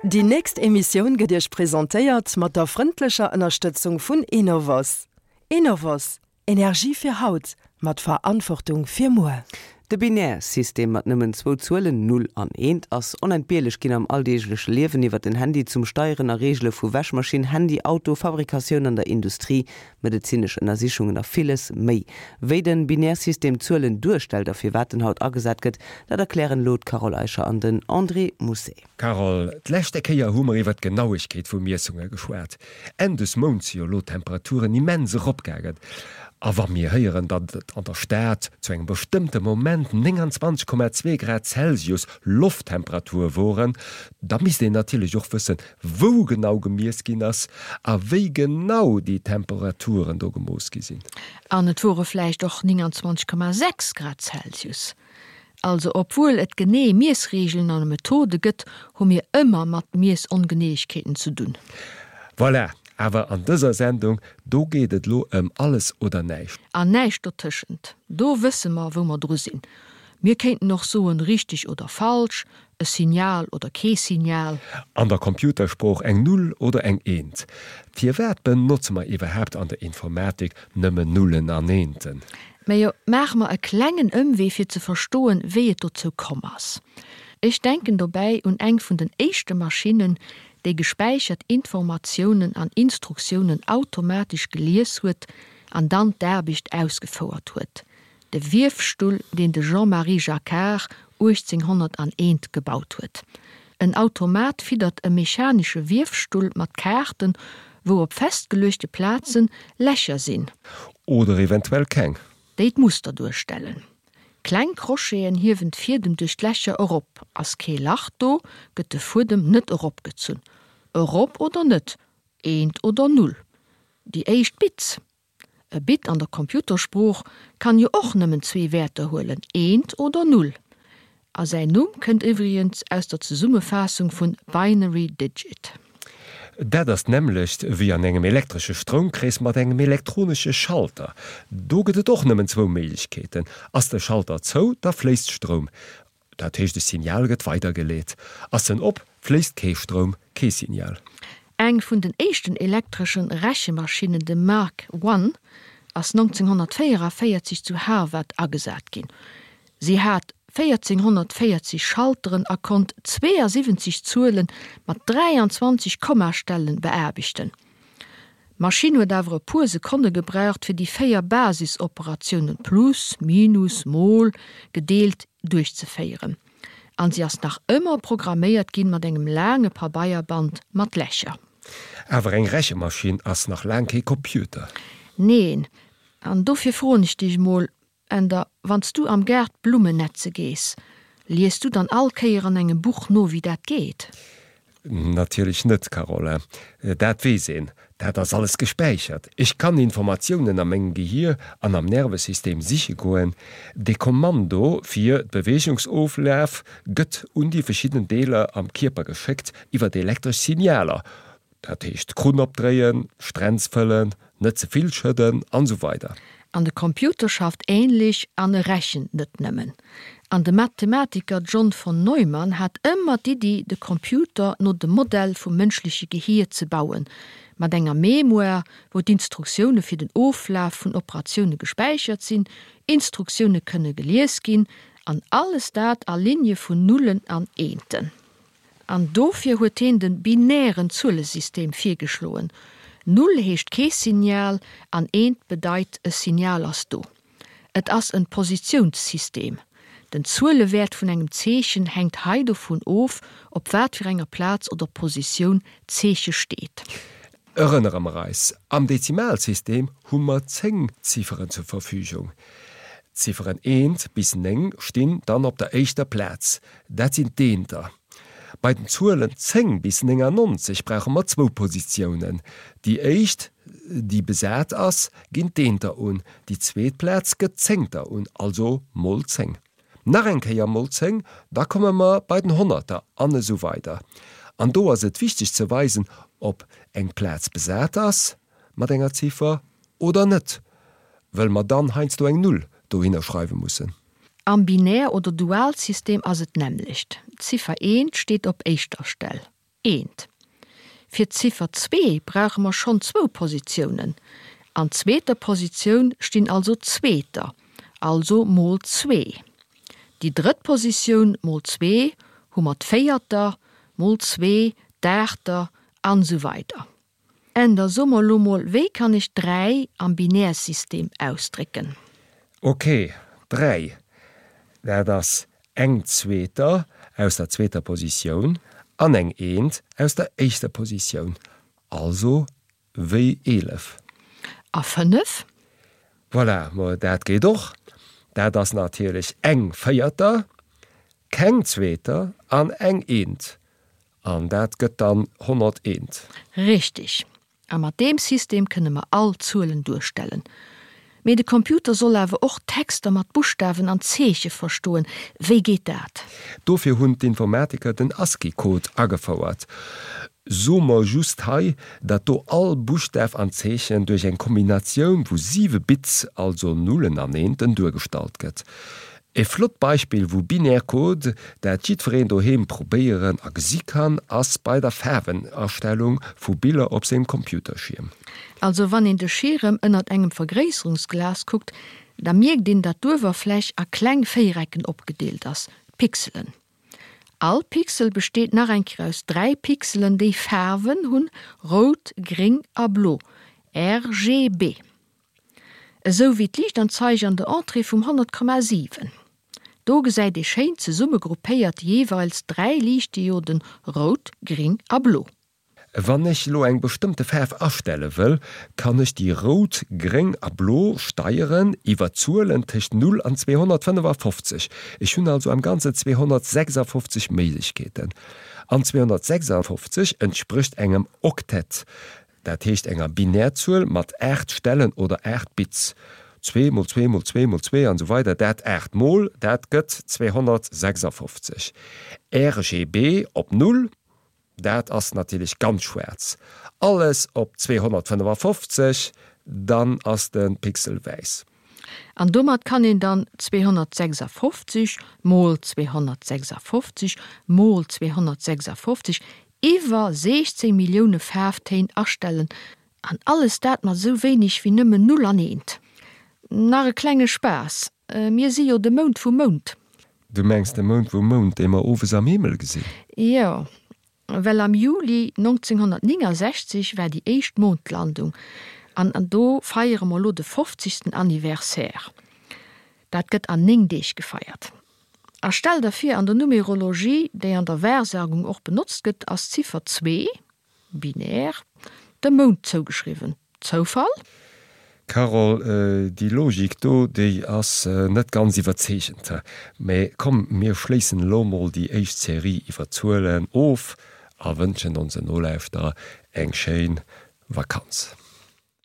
Déi nächst Emissioun gëtt Iech presentéiert mat der frëndlecher Ënnerstëtzung vun Enovos. Enovos, Energie fir haut, mat Verantwortung fir muer. De Binärsystem mat nëmmen zwou Zuelen, Null an Eent, ass onentbierlech ginn am alldeegleche Liewen, iwwer den Handy zum Steieren a Reegele vu Wäschmaschinn, Handy, Auto, Fabrikatioun an der Industrie, medezinesch Ënnersichungen a villes méi. Wéi den Binärsystem Zuelen duerstellt a firwat en haut agesat gëtt, dat erklären elo d'Carole Eicher an den André Mousset. Carole, d'leschte Kéier hu mer iwwer d'Genauegkeet vu Miessunge geschwat. Enn des Mounts si jo elo d'Temperaturen immens eropgaangen. A wa mir héieren, datt et an der Stad zu engem bestëmmte Moment 29,2 Grad Celsius Lofttemperatur woren, da misst een natierlech och wëssen, wou genau gemiess ginn ass a wéi genau déi Temperaturen do gemooss gi sinn. An et wore vläicht och 29,6 Grad Celsius. Also obwuel et genee Miessreegelen an Methode gëtt, hu mir ëmmer mat Miessongeneeëgkeeten ze dunn. Voilà, awer an dëser Sendung, do geet et lo ëm alles oder näischt. An näischt dotëschent. Do wësse mer, wou mer dru sinn. Mir kéinten och soen, richteg oder falsch, e Signal oder kee Signal. An der Computersprooch eng Null oder eng Eent. Firwat benotze mer iwwerhaapt an der Informatik nëmmen Nullen an Eenten? Mä jo, maache mer e klengen Ëmwee fir ze verstoen, wéi et dozou komm ass. Ech denken dobäi un eng vun den éischte Maschinnen, déi gespäichert Informatiounen an Instruktiounen automatesch gelies huet an dann d'Aarbecht ausgefouert huet, De Wiefstull, deen de Jean-Marie Jacquard 1801 gebaut huet. En Automat fiddert e mechanesche Wiefstull mat Kaarten, wou op festgeluechte Plazen Lächer sinn. Oder eventuell keng. Déi d'Muster duerstellen. Kleng Crocheten hiewen d'Fiedem duerch d'Lächer erop. Ass kee Lach do, gëtt de Fuedem net eropgezunn. Erop oder net, eent oder null. Déi éischt Bits. E Bit an der Computersprooch kann jo och nëmmen zwee Wäerter huelen, eent oder null. A säin Numm kënnt iwwregens aus der Zesummefaassung vun Binary Digit. Dat ass d'nämmlecht wéi an engem elektresche Stroumkrees mat engem elektronesche Schalter. Do gëtt et och nëmmen zwou Méiglechkeeten, Ass de Schalter zou, da fléisst Stroum. Dat heescht e Signal gëtt weidergeleet. Ass en op, fléisst kee Stroum, kee Signal. Eng vun den éischten elektreschen Rechemaschinen, de Mark I, ass 1944 zu Harvard agesat ginn. Si hat 1440 Schalteren a konnt 72 Zuele mat 23 Kommastellen beaarbechten. D'Maschinn huet awer e puer Sekonne gebraucht, fir déi 4 Basisoperatiounen, Plus, Minus, Mol, gedeelt, duerchzeféieren. An si ass nach ëmmer programméiert ginn mat engem laange Pabeierband mat Lächer. Awer eng Rechemaschinn ass nach laang kee Computer. Neen. An dofir froen ech dech mol, Änder, wann s du am Gaart Blummen netze gees, lies du dann all Kéier an engem Buch no, wéi dat geet? Natierlech net, Carole. Dat weess een. Dat ass alles gespäichert. Ech kann Informatiounen a mengem Gehier an am Nervesystem siche goen. De Kommando fir d'Beweegungsoflaf gëtt un déi verschidden Deeler am Kierper geschéckt iwwer elektresch Signaler. Dat heescht Krunn opdréien, Stränz fëllen, net ze vill schëdden an esou weider. An de Computer schafft ähnlech an e rechent net nëmmen. An de Mathematiker John von Neumann hat ëmmer d'Iddi de Computer no dem Modell vum mënschleche Gehier ze bauen, mat enger Mémoire wou d'Instruktioune fir den Oflaf vun Operatioune gespäichert sinn, Instruktioune kënne gelies ginn an alles dat a Ligne vun Nullen an Eenten. An dofir huet heen den binären Zuelesystem virgeschloen, Null heescht kee Signal an eent bedeit e Signal ass do. Et ass en Positiounssystem. Den Zuelewäert vun engem Zeechen hänkt hei dovun of, op wat fir enger Plaz oder Positioun d'Zeeche steet. Erënnere mer eis, Am Dezimalsystem hu mer 10 Zifferen zur Verfügung. D'Zifferen eent bis 9 stinn dann op der éischter Plaz, dat sinn d'Eenter. Bei den Zuelen 10 bis 99 brauche mer zwou Positiounen. Déi éischt, déi besat ass, ginn d'Eenter un, déi zweet Plaz gëtt d'Zéngter un, also mol 10. Nach eng Kéier mol 10, da komme mer bei den Honnerter an esou weider. An do ass et wichteg ze weisen, ob eng Plaz besat ass mat enger Ziffer oder net, wëll mer dann heiansdo eng Null dohinner schreiwe mussen. Am Binär oder Dualsystem ass et d'nämmlecht, d'Ziffer eent steet op éischter Stell. Eent. Fir d'Ziffer zwee brauche mer schonn zwou Positiounen. An zweeter Positioun stinn also Zweeter, also mol zwee. Déi drëtt Positioun mol zwee hu mer d'Véierter, mol zwee d'Aachter an esou weider. En da so mer lo mol, wéi kann ech 3 am Binärsystem ausdrécken? Ok, 3, dat ass eng Zweeter aus der zweeter Positioun an eng Eent aus der éischter Positioun, also wéi 11. A 5? Voilà, ma dat geet och. Dat ass natierlech eng Véierter, keng Zweeter an eng Eent. An dat gëtt dann 101. Richtig. A mat deem System kënne mer all Zuelen duerstellen. Mee de Computer soll awer och Texter mat Buschtawen an Zeeche verstoen. Wéi geet dat? Dofir hunn d'Informatiker den ASCII-Code agefouert. Soe mer just hei, datt do all Buschtaf an Zeechen duerch eng Kombinatioun vu siwe Bits, also Nullen an Eenten, duergestallt gëtt. E flott Beispill vu Binärcode, dat jiddwereen doheem probéieren a gesi kann, ass bei der Faarwenastellung vu Biller op sengem Computerschierm. Also wann een de Schierem ënnert engem Vergréisserungsglas kuckt, da mierkt een dat d'Uewerfläch a kleng Véierecken opgedeelt ass, Pixelen. All Pixel besteet nach eng Kéier aus 3 Pixelen déi Faarwen hunn, rout, gréng a blo, RGB. Esou wéi d'Liichtanzeig an der Entrée vum 100,7. Do gesäit ee schéin zesumme gruppéiert jeeweils 3 Liichtdioden, rout, gring a blo. Wann ech lo eng bestëmmte Faarf astelle wëll, kann ech déi rout, gréng a blo steieren iwwer Zuelen tëscht 0 an 255. Ech hunn also am Ganzen 256 Méiglechkeeten. An 256 entsprécht engem Oktett. Dat heescht enger Binärzuel mat 8 Stellen oder 8 Bits, 2 mol 2 mol 2 mol 2 an esou weider Dat 8 mol dat gëtt 256. RGB op 0, dat ass natierlech ganz schwaarz. Alles op 255, dann ass de Pixel wäiss. An domat kann een dann 256 mol 256 mol 256 iwwer 16 Millioune Faarftéin astellen, an alles dat mat esou wéineg wéi nëmmen Null an Eent. Nach e klenge Spaass, mir si jo de Mount vum Mount. Du mengs de Mount vum Mount, dee mer owes am Himmel gesinn? Jo, Well am Juli 1969 war déi éischt Mondlandung an do feiere mer elo de fofzegsten Anniversaire. Dat gëtt an 9 Deeg gefeiert. A stell der vir, an der Numerologie, déi an der Wahrsagung och benotzt gëtt, ass d'Ziffer zwee, binär, dem Mound zougeschriwwen. Zoufall? Carole, déi Logik do, déi ass net ganz iwwerzeegend. Mä komm, mir schléissen elo mol déi éischt Serie iwwer Zuelen of a wënschen onsen Nolauschterer eng schéin Vakanz.